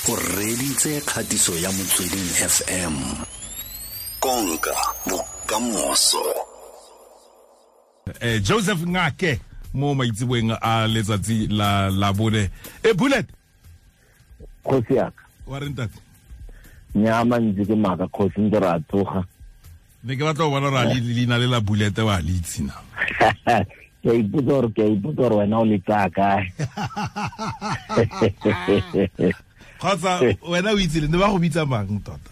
O reditse kgatiso ya Motsweding FM. Konka bokamoso. Joseph Ngake mo maitseboeng a letsatsi la Labone. Bullet. Kgosi yaka. Wa re ntate? Nyama ntse ke maka kgosi ntse ra tsoga. Ne ke batla go bona gore a leina le la Bullet wa le itse na. Ke a ipotsa gore wena o le tsaya kae. Kgotsa wena o itse le ne ba go bitsa mang tota?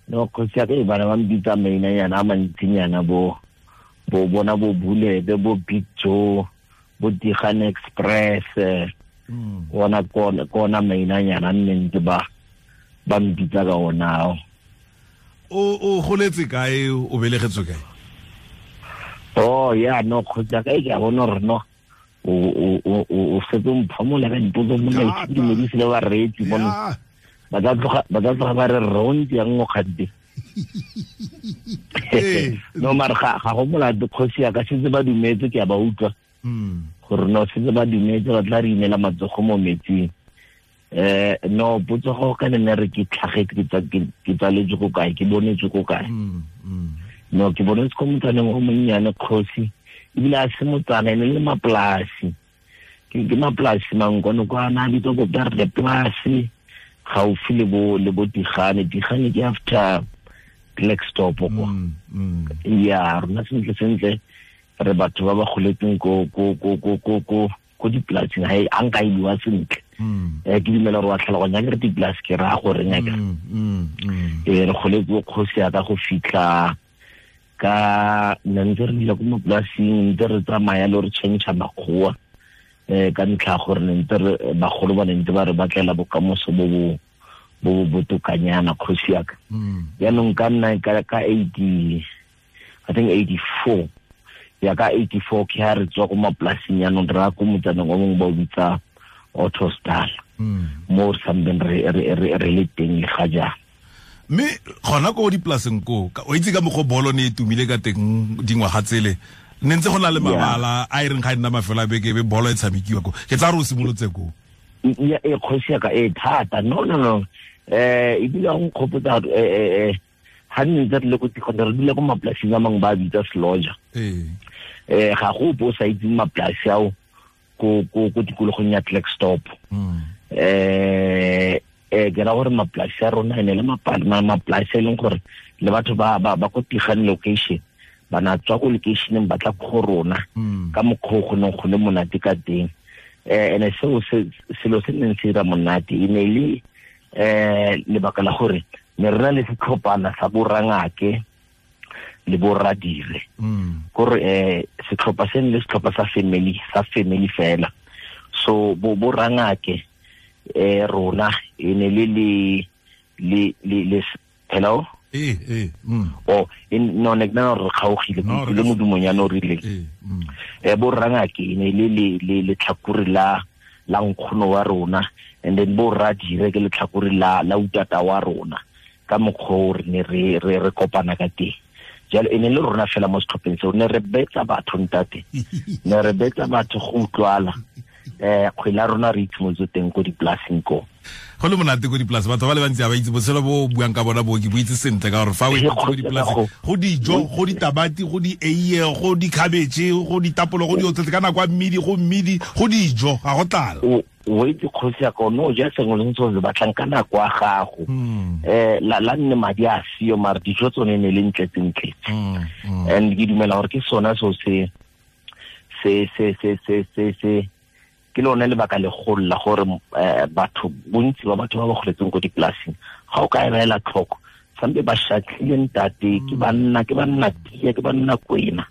No kgosi ya ka e bana ba mbitsa mainanyana a mantsinyana bo bona bo Bullet, bo Big Joe, bo Digan Express, ona kona mainanyana nne ntse ba mbitsa ka ona. O goletse kae, o belegetswe kae? Oh yeah, no kgosi ya ka e ke a bona gore no o setse o mphamola ka dipotso mona ke dumedise le bareetsi mono. Ba tla tloga ba re rontsi yang mo kgante. No mare ga go molato kgosi ya ka setse ba dumetse ke a ba utlwa. Gore no setse ba dumetse ba tla re inela matsogo mo metsing. No potso go ka nne re ke tlhagetse ke tsaletswe ko kae, ke bonetswe ko kae. No ke bonetse ko motsaneng o monnyane kgosi, ebile a se motsana e ne le mapolasi. Ke mapolasi mangkono kwa na bitsa ko Berle polasi gaufi le bo Digane. Digane ke after Blackstop kwa. Ya rona sentle re batho ba ba goletseng ko dipolasing ga a nka e bua sentle. Ke dumela gore wa tlhaloganya ke re dipolasi ke raya gore ngaka. Re goletse kgosi ya ka go fitlha ka ne ntse re dula ko mapolasing, ntse re tsamaya le re change makgowa ka ntlha gore ne ntse re bagolo ba ne ntse ba re batlela bokamoso bo bo botokanyana kgosi ya ka. Jaanong ka nna ka 80 I think 84 ya ka 84 ke ha re tswa ko mapolasing jaanong re ya ko motsaneng o mongwe ba o bitsa Autostal, mo re sambeng re le teng le ga jaana. Mme gona ko dipolaseng ko o itse ka mokgwa bolo ne e tumile ka teng dingwaga tsele, ne ntse go na le mabala a e reng ga e nna mafelo a beke be bolo e tshamekiwa ko. Ke tsa re o simolotse ko. Ya e kgosi ya ka e thata. No ebile go nkgopotsa ga nne ntse re le ko tikgone re dule ko mapolasing a mangwe ba bitsa Seloja. Ga go ope o sa itseng mapolasi ao ko tikologong ya Blackstop. Ke ra gore mapolasi a rona ene le mapolasi e leng gore le batho ba ko Tigane location ba na tswa ko locationeng ba tla go rona ka mokgwa go neng go le monate ka teng. Ene seo selo se neng se dira monate e ne le lebaka la gore ne re na le setlhophana sa borangake le borradire. Kore setlhopha se ne le setlhopha sa family fela. So borangake rona e ne le le hello oh no ne ke re kgaogile ke le modumonyana o rileng. Borangake e ne le letlhakore la nkgono wa rona, and then borradire ke letlhakore la utata wa rona ka mokgwa o re ne re kopana ka teng. Jalo e ne le rona fela mo setlhopheng seo ne re betsa batho ntate, ne re betsa batho go utlwala. Kgwele ya rona re itshimotse teng ko dipolasing ko. Go le monate ko dipolase, batho ba le bantsi ga ba itse botshelo bo buang ka bona bo ke bo itse sentle ka gore fa o ko dipolase go dijo, go ditamati, go di eiye, go dikhabetšhe, go ditapolo, go diotsetse ka nako ya mmidi, go mmidi, go dijo, ga go tlala. O itse kgosi ya ka no ja sengwe le sengwe se batlang ka nako ya gago. La nne madi a sio mare dijo tsone ne le ntletse. And ke dumela gore ke sona seo se ke lone lebaka legolo la gore batho bontsi ba batho ba ba goletseng ko dipolasing ga o ka e beela tlhoko sampe ba shatlile ntate, ke banna tia, ke banna kwena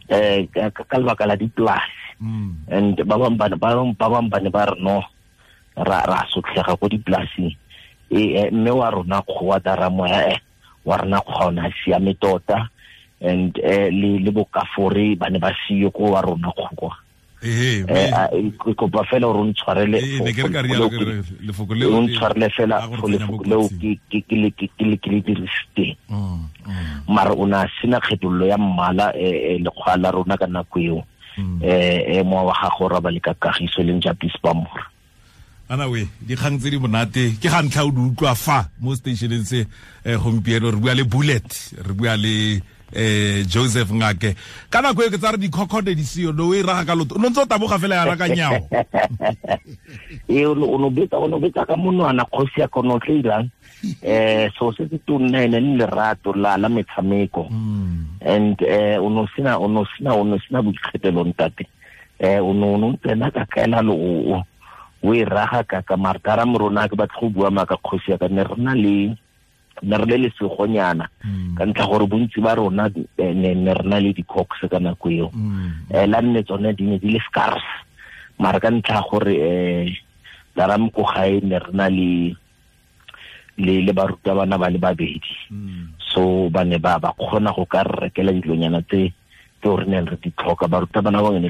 ka lebaka la dipolasi. And ba bangwe ba ne ba re no ra sotlhega ko dipolasing. Mme wa rona kgowa daramoya wa rona kgowa o ne a siame tota, and le bokafore ba ne ba siyo ko wa rona kgowa. Ke kopa fela gore o ntshwarele fela lefoko leo ke le dirisiteng. Mara o ne a sena kgethololo ya mmala lekgwa la rona ka nako eo. Mowa wa gago ra ba le ka kagiso leng Japis Bamora. Ana we dikgang tse di monate ke ga ntlha o di utlwa fa mo stationeng se gompieno re bua le Bullet, re bua le Joseph Ngake. Ka nako e ke tsa re dikhokhode di seo no e raga ka loto no ntse o taboga fela ya raka nyao. E o no betsa ka monwana kgosi ya kono tle irang. So se se tonna ene le lerato la metshameko. And o no sina boikgethelo ntate. O no tsena ka kaela lo o e raga ka martara morona ke batla go bua maka kgosi ya ka ne re na le ne re le lesegonyana ka ntlha gore bontsi ba rona ne re na le di-cox ka nako eo. La nne tsone di ne di le scarce mara ka ntlha gore daram ko gae ne re na le le barutabana ba le babedi. So ba ne ba kgona go ka re rekela dilonyana tse re neng re di tlhoka. Barutabana ba ne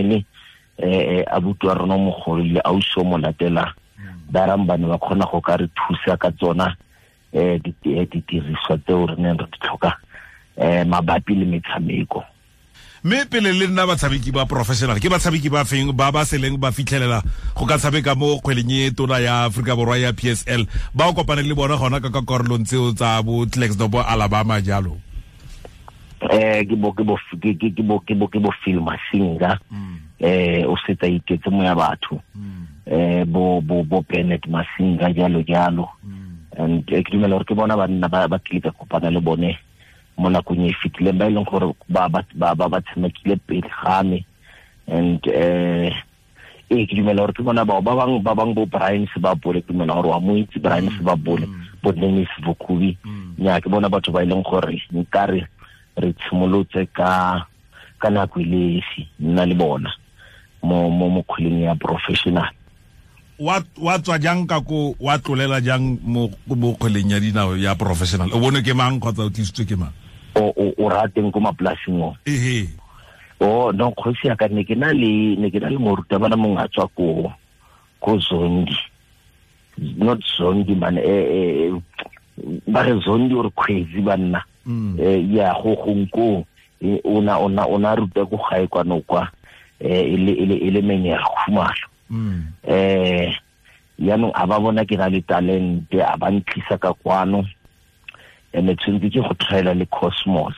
le abuti wa rona mogolo le ausi o mo latela daram ba ne ba kgona go ka re thusa ka tsona didiriswa tseo re neng re di tlhoka mabapi le metshameko. Mme pele le nna batshameki ba professional ke batshameki ba feng ba ba seleng ba fitlhelela go ka tshameka mo kgweleng e tona ya Afrika Borwa ya PSL ba o kopane le bona gona ka karolong tseo tsa bo Klerksdorp bo Alabama jalo? Ke bo Phil Masinga o setsa iketse mo ya batho bo Bennett Masinga jalo jalo. And ke dumela gore ke bona banna ba tlile ka kopana le bone mo nakong e fetileng ba e leng gore ba tshamekile pele ga me. And ke dumela gore ke bona bao ba bang bo Brian Sebabole, ke dumela gore wa mo itse Brian Sebabole, bo Dennis Vokubi. Nya ke bona batho ba e leng gore nkare re tshimolotse ka nako e le esi nna le bona mo kgweleng ya professional. Wa tswa jang ka ko wa tlolela jang mo kgweleng ya dinao ya professional? O bone ke mang kgotsa o tlisitswe ke mang? O rateng ko mapolasing o? Ehe. O no kgosi ya ka ne ke na le morutabana mongwe a tswa ko Zondi. Not Zondi man, ba re Zondi or Khwezi banna. Ya go gongko o na ruta ko gae kwano kwa e le menyega khumalo. Yaanong a ba bona ke na le talente a ba ntlisa ka kwano ene tshwanetse ke go try-ela le Cosmos.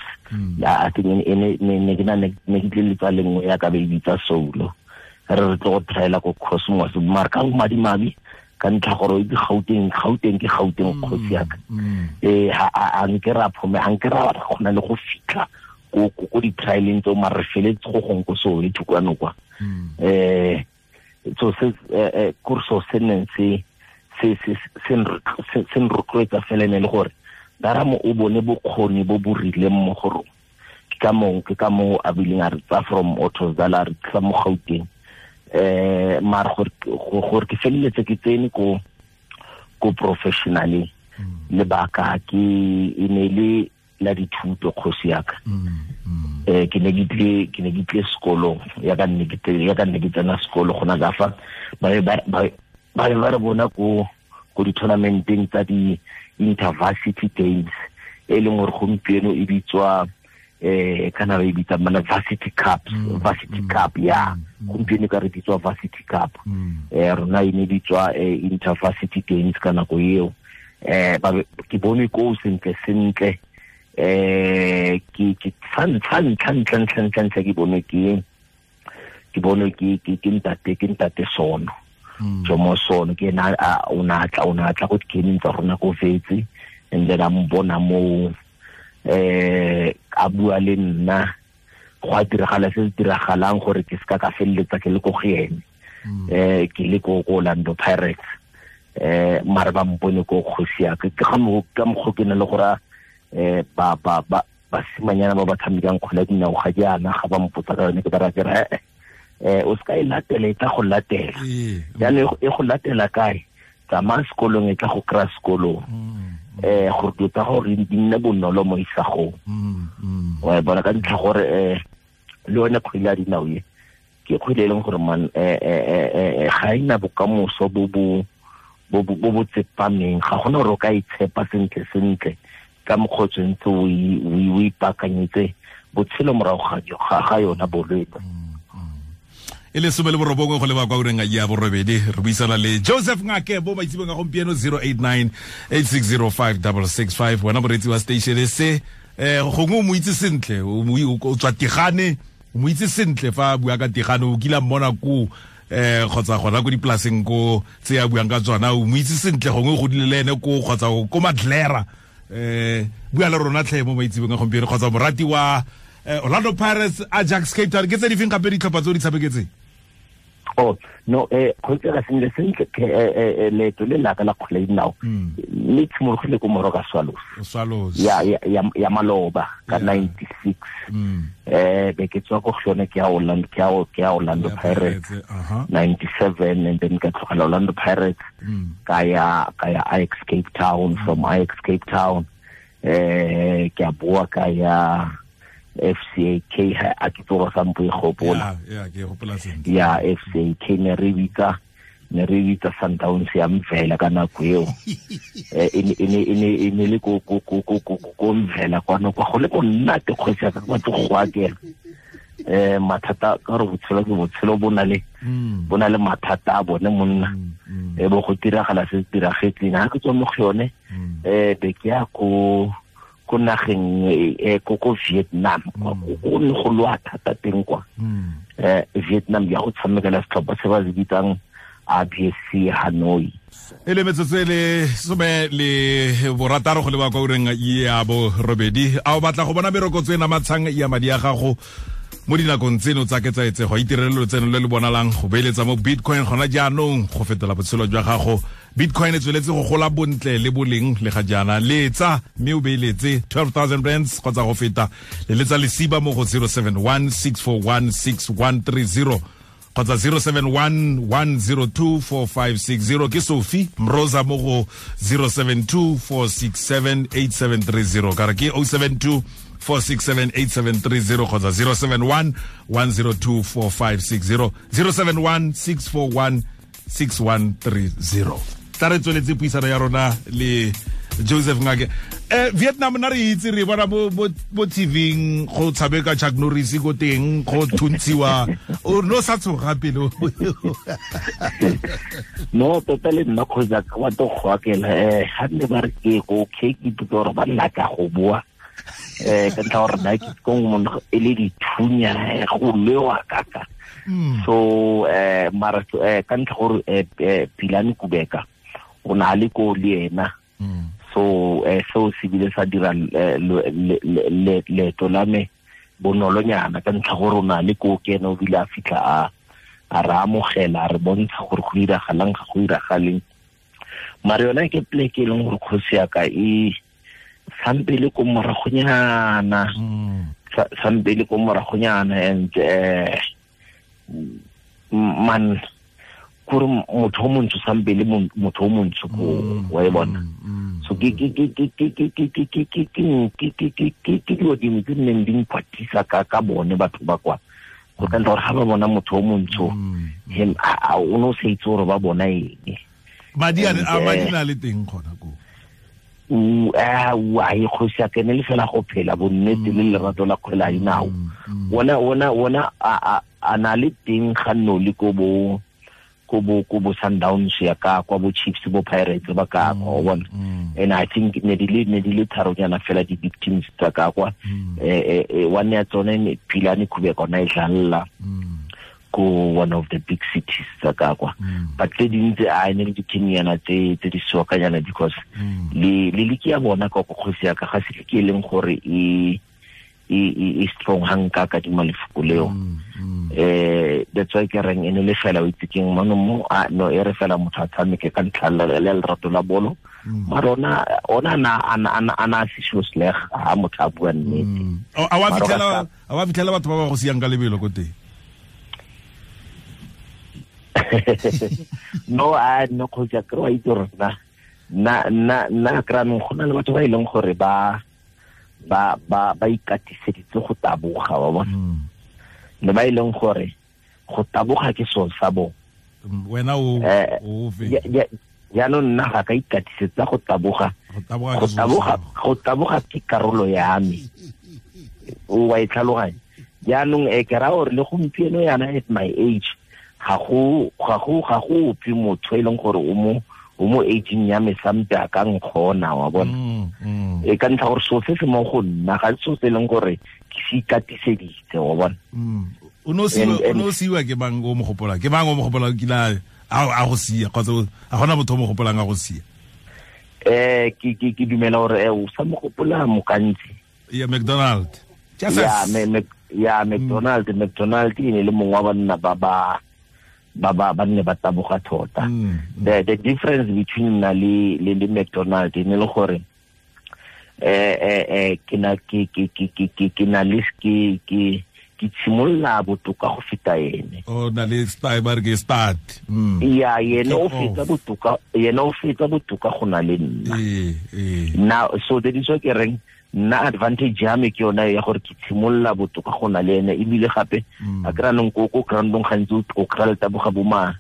Ya I think ne ke na ne ke tle le tsa lengwe ya ka be bitsa Soulo re re tlo go try-ela ko Cosmos mara ka madimabi ka ntlha gore ke Gauteng ke Gauteng kgosi ya ka. A nke ra phome a nke ra kgona le go fitlha ko di-trialeng tseo mara re feletse go gong ko Soweto kwano kwa. So se kurso se neng se nrotloetsa fela ne le gore daramo o bone bokgoni bo bo rileng mo go rona. Ke ka moo a bileng a re tsa from Ottosdal a re tlisa mo Gauteng. Mara gore ke feleletse ke tsene ko professionaleng lebaka ke e ne le la dithuto kgosi ya ka. Ke ne ke tle sekolong ya ka nne ke tsena sekolo gona ka fa ba re bona ko di-tournamenteng tsa di-intervarsity games e leng gore gompieno e bitswa kana ba e bitsa mana varsity cup, varsity cup ya gompieno ka re bitswa varsity cup. Rona e ne bitswa intervarsity games ka nako eo. Ke bone ko sentle sentle ke fa ntlha ke bone ke ntate Sono. Jomo Sono ke ena o na tla go dikeneng tsa rona ko Vetse and then a mbona mo a bua le nna go a diragala se se diragalang gore ke seka ka feleletsa ke le ko go ene. Ke le ko Orlando Pirates. Mara ba mpone ko kgosi ya ka ke ga mo ka mokgwa ke ne le gore ba basimanyana ba ba tshamekang kgwele ya dinao ga jaana ga ba mpotsa ka yone ke ba ra ke re o seka e latela e tla go latela. Jaanong e go latela kae? Tsamaya sekolong e tla go kry-a sekolong. Gore dilo tsa gore di nne bonolo mo isagong. Wa e bona ka ntlha gore le yone kgwele ya dinao e ke kgwele e leng gore man ga ena bokamoso bo bo tsepameng. Ga gona gore o ka itshepa sentle sentle ka mokgwa o tshwanetse o ipaakanyetse botshelo morago ga yona bolwetse. E E le 19 go leba kwa ureng ya borobedi, re buisana le Joseph Ngake bo maitsebong a gompieno 089 8605 665. Wena moreetsi wa station se, gongwe o mo itse sentle, o tswa Tigane, o mo itse sentle fa a bua ka Tigane, o kile a mmona ko kgotsa gona ko dipolaseng ko tse a buang ka tsona, o mo itse sentle, gongwe o godile le ene ko kgotsa ko Madlera. Bua le rona tlhe mo maitsebong a gompieno, kgotsa morati wa Orlando Pirates, Ajax Cape Town, ke tse di feng gape ditlhopha tse o di tshameketseng? Oh no, go tsela sentle sentle, leeto le la ka la kgwele dinao le tshimologile ko Moroka Swallows ya maloba ka 96. Be ke tswa ko go yone, ke ya Orlando, ke ya Orlando Pirates 97, and then ka tlogela Orlando Pirates, ka ya Ajax Cape Town. From Ajax Cape Town, ke a boa ka ya FCAK, a ke tsoga sampo e gopola. Ya, ke gopola sentle. Ya FCAK ne re bitsa Sundowns ya Mvela ka nako eo. E ne le ko Mvela kwano kwa go le ko nnate kgosi ya ka batlo go akela. Mathata ka gore botshelo ke botshelo, bo na le mathata a bone monna. Bo go tiragala se se diragetseng. Ha ke tswa mo go yone, be ke ya ko nageng ko Vietnam, go ne go lwa thata teng kwa. Vietnam ya go tshamekela setlhopha se ba se bitsang ABSC Hanoi. E le metsotso e le 16 go leba kwa ureng ya borobedi. A o batla go bona merokotso e namatshang ya madi a gago mo dinakong tseno tsa ketsaetsego? Itirele lotseno le le bonalang go beeletsa mo Bitcoin gona jaanong go fetola botshelo jwa gago. Bitcoin e tsweletse go gola bontle le boleng le ga jaana. Letsa mme o beeletse 12,000 rands kgotsa go feta. Leletsa lesiba mo go 071 641 6130 kgotsa 071 102 4560. Ke Sophie Mroza mo go 072 467 8730. Ka re ke 072 467 8730 kgotsa 071 102 4560, 071 641 6130. Tla re tsweletse puisano ya rona le Joseph Ngake. Vietnam na re itse, re bona bo TV-ing go tshameka Chuck Norris ko teng, go thuntshiwa. O no sa tshoga pele? No, tota le nna kgotsa ka batho go akela. Ga nne ba re ke go ke ipotsa gore ba nna ka go boa. Ka ntlha gore nna ke ko monna e le dithunya go lewa kaka. So mara ka ntlha gore Pilane Kubeka o na le ko le ena. So seo se bile sa dira leeto la me bonolonyana ka ntlha gore o na le ko ke ena, o bile a fitlha a re amogela, a re bontsha gore go diragalang ga go diragaleng. Mare yona ke pleke e leng gore kgosi ya ka e sampele ko moragonyana, sampele ko moragonyana, and man kore motho o montsho sampele motho o montsho ko wa e bona. So ke dilo dingwe tse nneng di nkwatisa ka bone batho ba kwa, go ka ntlha gore ga ba bona motho o montsho, o ne o sa itse gore ba bona eng. Madi a na le teng gona ko. A e kgosi ya kene le fela go phela bonnete le lerato la kgwele ya dinao. Ona a na le teng ga nno le ko bo Sundowns ya ka kwa bo Chiefs bo Pirates ba ka kwa, o bona. And I think ne di le tharonyana fela di big teams tsa ka kwa. One ya tsone Pilane Kubeka ona e dlalla ko one of the big cities tsa ka kwa. But tse dintse a ne le di-teamnyana tse di soakanyana, because le liki ya bona ka kgosi ya ka ga se liki e leng gore e strong hang ka dima lefoko leo. That's why ke reng e ne le fela o itse keng mano mo no e re fela motho a tshameke ka ntlha le lerato la bolo. Mara ona ana se sho sleg ha motho a bua nnete. A wa fitlhela batho ba ba go siang ka lebelo ko teng? No, a no kgosi ya kry-a itse gore nna kry-a nong go na le batho ba e leng gore ba ikatiseditse go taboga, wa bona. Le ba e leng gore go taboga ke seo sa bone. Wena o fe? Jaanong nna ga ka ikatisetsa go taboga. Go taboga ke karolo ya me. O wa e tlhaloganya. Jaanong ke raya gore le gompieno yana at my age, Ga go ope motho e leng gore o mo aging ya me sampe a ka nkgona, wa bona. E ka ntlha gore so se se mo go nna ga so se leng gore ke se ikatiseditse, wa bona. O no siwa ke mang o mo gopola? Ke mang o mo gopola kila a go sia kgotsa a gona motho o mo gopolang a go sia? Ke dumela gore o sa mo gopola Mokantsi. Ya McDonald. Ya McDonald, McDonald e ne le mongwe wa banna ba ba nne ba taboga tota. The difference between nna le McDonald e ne le gore ke na le ke tshimolla botoka go feta ene. O na le style ba re ke start. Ya yene o feta botoka, yena o feta botoka go na le nna. Now so that is what ke reng nna advantage ya me ke yona ya gore ke tshimolla botoka go na le ene, ebile gape a kry nong ko groundong gantsi o kry-a le taboga bo ma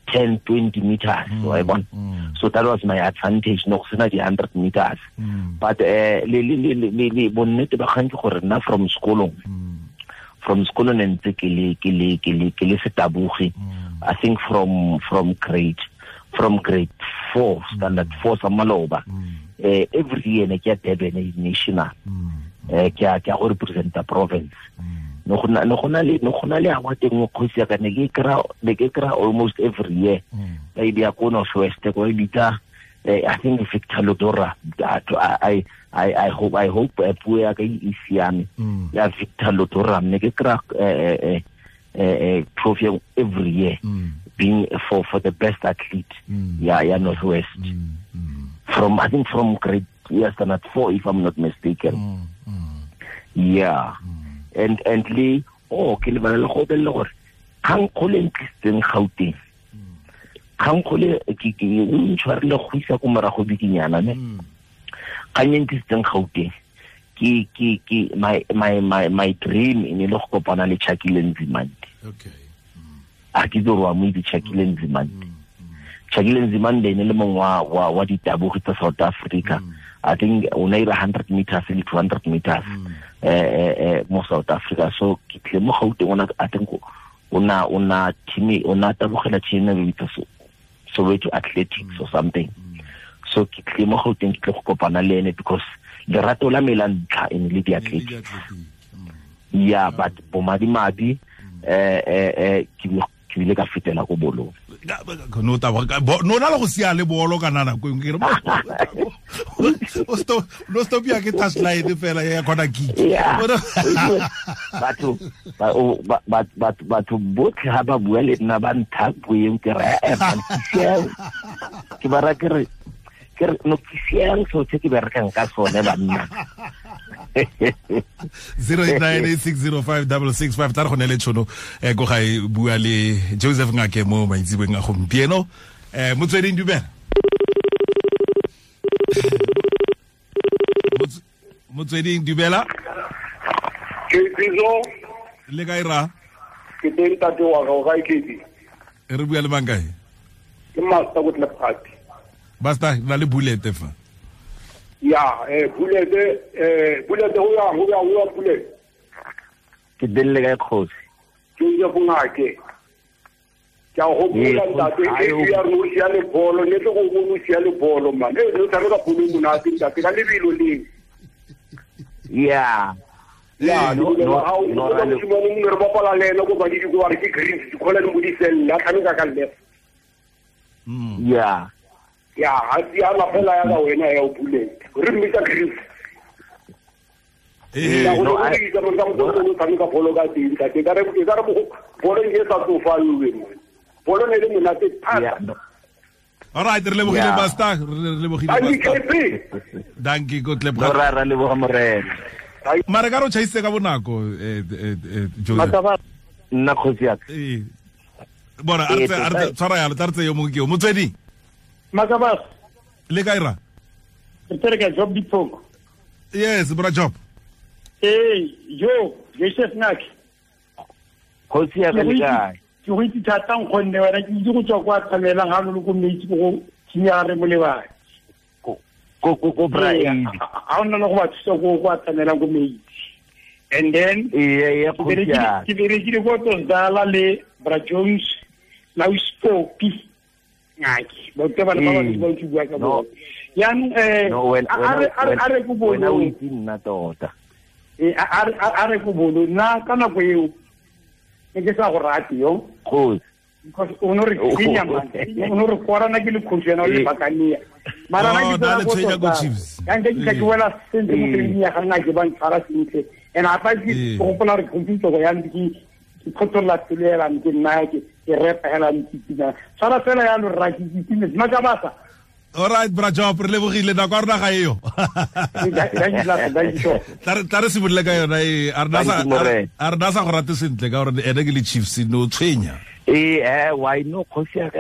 10 20 meters, wa bona. So that was my advantage, no go sena di 100 meters. But le bonnete ba kgang ke gore nna from sekolong ne ntse ke le setabogi. I think from grade 4, standard 4 sa maloba. Every year ne ke ya Durban national. Ke ya go representa province. No go na le award engwe kgosi ya ka ne ke kry almost every year. Ba e beya ko North West, ko e bitsa I think Victor Lodora. I hope puo ya ka e siame. Ya Victor Lodora ne ke kry trophy every year, being for the best athlete ya North West. From I think from grade standard 4, if I'm not mistaken. Yeah. And le ke lebala le go bella gore kgang kgole ntlisitseng Gauteng. Kgang kgole ke o ntshwarile go isa ko morago bikinyana ne. Kgang e ntlisitseng Gauteng ke my dream e ne le go kopana le Chakile Nzimande. Okay. A ke tsore wa mo itse Chakile Nzimande. Chakile Nzimande ne le mongwe wa ditabogi tsa South Africa. I think o ne ira 100 meters le 200 meters mo South Africa. So ke tle mo Gauteng ona, I think ona team ona tabogela team e bitsa Soweto Athletics or something. So ke tle mo Gauteng ke tle go kopana le ene because lerato la me la ntlha e ne le di-athletics. Yeah, but bomadimabi ke bile ka fetela ko bolong. No no na le go sia le bolo kana nako engwe ke re o stop no stop ya ke touchline fela ya khona kick. Batho botlhe ha ba bua le nna ba ntha puo ke re ke ba ra ke re no ke siang so tse ke berekang ka sone banna. 0898605665 tla re go ne le tshono ko ga e bua le Joseph Ngake mo maitsebeng a gompieno. Motsweding dumela. Motsweding dumela. Ke Bizo le kae ra? Ke teng tate wa ga o kae ke? Re bua le mang kae? Ke Master go Tlepati. Basta na le bullet fa. Ya, bullet bullet ho ya bullet. Ke delle kae kgosi? Ke ya bongake. Ke a go bula ntate e ya re o sia le bolo, ne tlo go bona o sia le bolo man. E re tshameka bolo monate ntate ka lebelo leng. Yeah. Ya, no no no re bapala le ena go ba di go re ke green di khola le modisella tshameka ka left. Yeah. Ya, ha ya la fela ya ka wena ya o bullet. Re mmitsa Chris. No, I tshameka bolo ka teng ka ke re bolo e sa tsofalwe mo. Bolo ne le monate thata. All right, re lebogile Basta, re lebogile Basta. Dankie go tleboga. Re leboga morena. Mare ka ro chaise ka bonako Joseph. Nna kgosi ya ka. Bona a re tshwara ya le tla re tse yo mongwe ke yo motswedi. Makabas. Le kae ra? Re ka Job Dipoko. Yes, bra Job. Hey, yo, Joseph Ngake. Kgosi ya ka le kae? Ke go itse thata nkgonne wena ke itse go tswa kwa tshamelang ga lo ko metsi go tsenya re molebane. Ko bra e. Ha ona le go ba thusa go kwa tshamelang ko metsi. And then ke berekile ko Tsondala le Bra Jones La o spopi ngaki ba te ba ba ba ba bua ka bo yang a re go bolo o itse nna tota a re go bolo nna ka nako eo ne ke sa go rate yo because o no re tsenya man o no re korana ke le coach yana o le bakania mara na ke tsena go yang ke ke wela sentle mo training ya ga nna ke ba ntshwara sentle and a pa ke go gopola re computer go yang ke khotlola pelo ela ke nna ke repa hela ntse tshwara fela ya lo rra ke itse maka basa. All right, bra Job, re lebogile nako a rona ga eo. Tla re simolole ka yona e a rena sa go rate sentle ka gore ene ke le Chiefs no tshwenya. Why no kgosi ya ka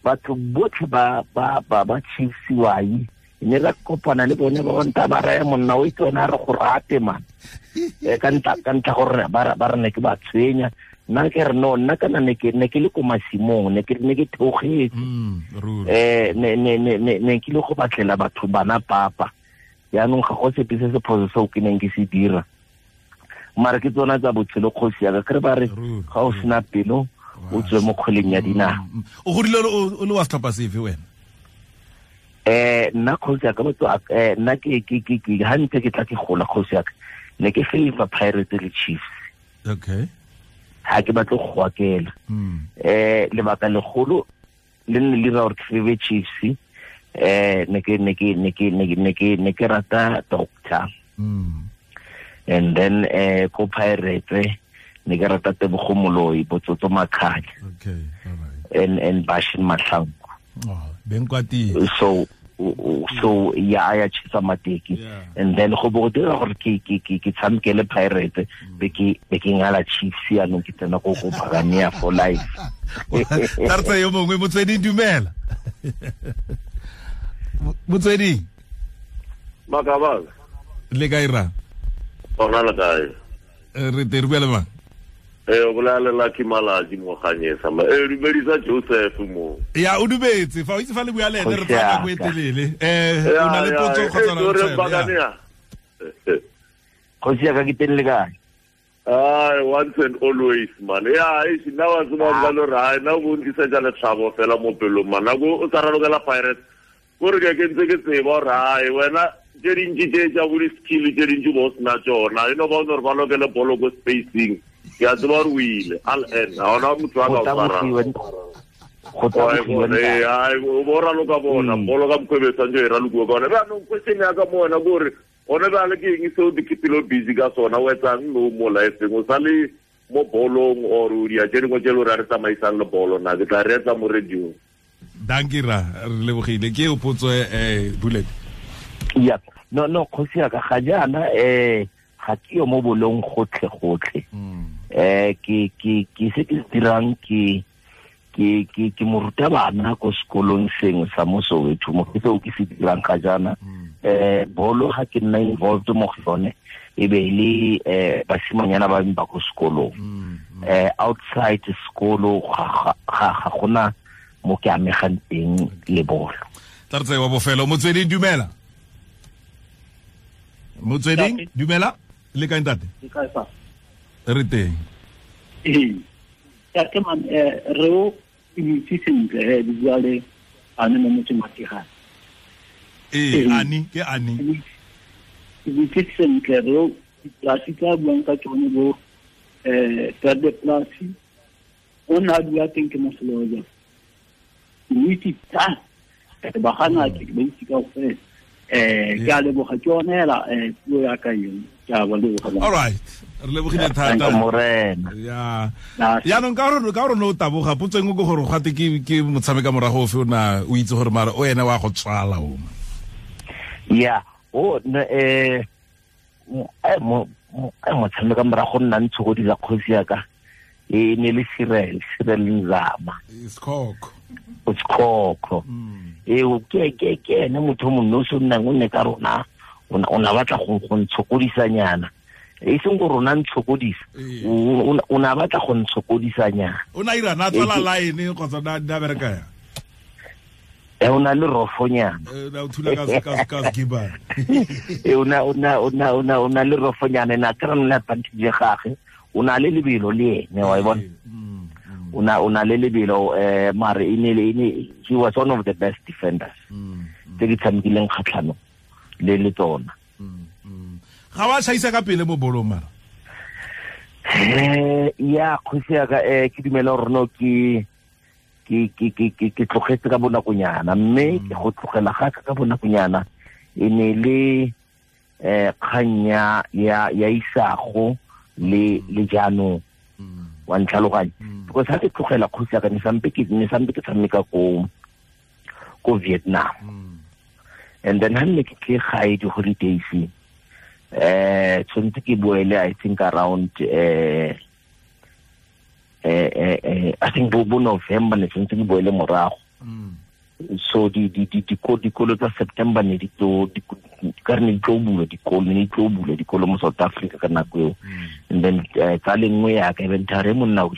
batho botlhe ba Chiefs wai ne ra kopana le bone ba nta ba raya monna o itse wena re go rate man. Ka ntla gore ba re ne ke ba tshwenya. Nna ke re no nna kana ne ke le ko masimong ne ke theogetse ne ke le go batlela batho bana papa yaanong ga go sepe se se phoso seo ke neng ke se dira mara ke tsona tsa botshelo kgosi ya ka kere ba re ga o sena pelo o tswe mo kgweleng ya dinao. O godile o le wa setlhopha sefe wena? Nna kgosi ya ka motho nna ke ha ntse ke tla ke gola kgosi ya ka ne ke favor Pirates le Chiefs. Okay. Ha ke batle go akela lebaka legolo le nne le ra gore ke favor Chiefs ne ke rata doctor and then ko Pirates ne ke rata Tebogo Moloi Botsotso Makhanya. Okay, all right. And Bashin Mahlangu. Oh, Benkwati. So ya ya chisa mateki and then go bo dira gore ke tshameke le Pirates be ke ngala Chiefs ya no ke tsena go Buccaneer for life. Tartsa yo mongwe Motsweding dumela. Motsweding Makabala le kae ra? Ona le kae? Re te re mang? O bolela Lucky Malaji mo Ganyesa ma dumedisa Joseph mo. Ya o dumetse fa o itse fa le bua le ene re tsaya nako e telele. O na le potso kgotsa na le Kgosi ya ka ke teng le kae? Ai once and always man. Ya e nna wa tseba ba lo ra nna o ntlisetsa letlhabo fela mo pelong man. Nako o tsa ralokela Pirates gore ke ntse ke tseba gore ai wena tse dintsi tse tsa bo di-skill tse dintsi bo sena tsona e no ba o ne re ba lokele bolo ko spacing. Ke a tseba gore o ile al en ga ona motho a ka o tshwarang. O raloka bona bolo ka mokgwa e tshwanetse e ralokiwe ka ona. Jaanong question ya ka mo wena ke gore gone bjale ke eng seo di keepile busy ka sona o etsang no mo lifeng o sa le mo bolong or o dia tse dingwe tse le gore a re tsamaisang le bolo na ke tla reetsa mo radio. Dankie ra re lebogile ke o potso bullet. Ya no kgosi ya ka ga jaana ga ke yo mo bolong gotlhe gotlhe. Ke se ke dirang ke morutabana ko sekolong sengwe sa mo Soweto mo ke seo ke se dirang ga jaana. Bolo ga ke nna involved mo go yone e be le basimanyana ba ba ko sekolong. Outside sekolo ga gona mo ke amegang teng le bolo. Tla re tseye wa bofelo. Motsweding dumela. Motsweding dumela le kae ntate? Ke kae fa? Re teng. Ke man re o itse sentle di bua le ane mo motseng wa Tigane. Ani ke ani. Itse sentle re o diplasi tsa buang ka tsone bo perde plasi o na dula teng ke moseloja. Itse tsa ba gana ke ba itse ka ofela. Ke a leboga ke yone hela puo ya ka eo ke a ba leboga. All right, re lebogile thata morena. Ya yaanong ka gore no taboga potso engwe ke gore gate ke motshameka morago ofe o na o itse gore mara o ene wa go tswala o. Ya o motshameka morago nna ntshokodisa kgosi ya ka e ne le Cyril Nzama. Sekhokho. O sekhokho. Ke ene motho mongwe o se nnang o nne ka rona o na batla go ntshokodisanyana. E seng go rona ntshokodisa. O na batla go ntshokodisanyana. O na ira na tswala line kgotsa na bereka ya. O na le rofonyana. Na o thula ka skiba. O na le rofonyana na kra nna advantage ya gagwe. O na le lebelo le ene wa e bona. O na le lebelo mare e ne he was one of the best defenders tse di tshamekileng kgatlhano le tsona. Ga wa shaisa ka pele mo bolong mara? Ya kgosi ya ka ke dumela gore no ke tlogetse ka bonakonyana, mme ke go tlogela ga ka bonakonyana e ne le kgang ya isago le jaanong wa ntlhaloganya, because ha ke tlogela kgosi ya ka ne sampe ke tshameka ko Vietnam, and then ha nne ke tle gae di holidays tshwanetse ke boele I think around I think bo November ne tshwanetse ke boele morago. So dikolo tsa September ne di tlo bula dikolo mo South Africa ka nako eo. And then tsa lengwe ya ka inventory monna we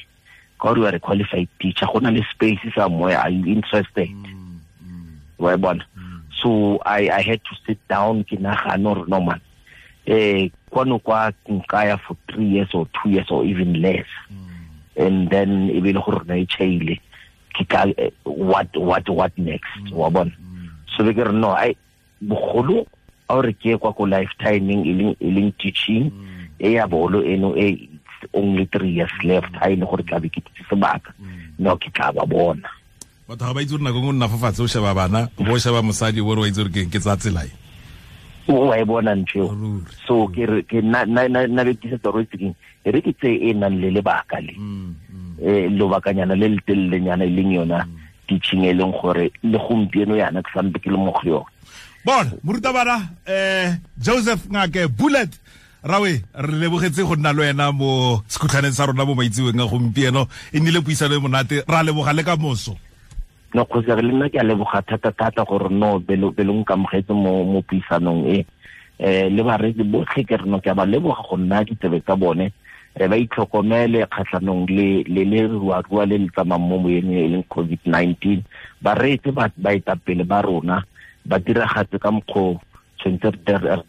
ka gore you are a qualified teacher, go na le space somewhere, are you interested? Wa bona. So I had to sit down ke nagana gore no man, kwano kwa nkaya for 3 years or 2 years or even less, and then e be le gore na e chaile what next, wa bona. So be ke re no, I bogolo a re ke kwa ko lifetiming e leng teaching e ya bolo eno e only 3 years left, ha ile gore tla be ke tse sebaka no ke tla ba bona. Batho ga ba itse gore nako nngwe nna fa fatshe o sheba bana, o bo sheba mosadi o re wa itse gore ke tsa tsela e. O wa e bona ntho. So ke re ke na be ke se toro tse e re ke tse e nang le lebaka le. Lobakanyana le le telelenyana e leng yona teaching e leng gore le gompieno yana ke sampe ke le mo go yona. Bona morutabana Joseph Ngake Bullet Rawe, re lebogetse go nna le wena mo sekhutlhaneng sa rona mo maitseweng a gompieno, e nnile puisano e monate, ra leboga le ka moso. No kgosi re le nna ke a leboga thata gore no belo nkamogetse mo puisanong e le bareetsi botlhe ke re no ke a ba leboga go nna ditsebe tsa bone, ba itlhokomele kgatlhanong le le ruarua le le tsamayng mo moyeng e leng COVID-19. Ba reetse baetapele ba rona, ba diragatse ka mokgwa tshwanetse re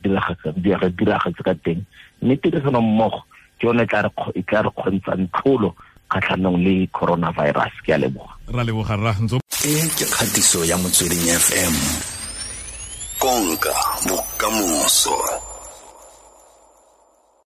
diragatse ka teng, mme tirisano mmogo ke yone e tla re kgontshang tlholo kgatlhanong le coronavirus. Ke a leboga. Ra leboga rra. E ke kgatiso ya Motsweding FM, konka bokamoso.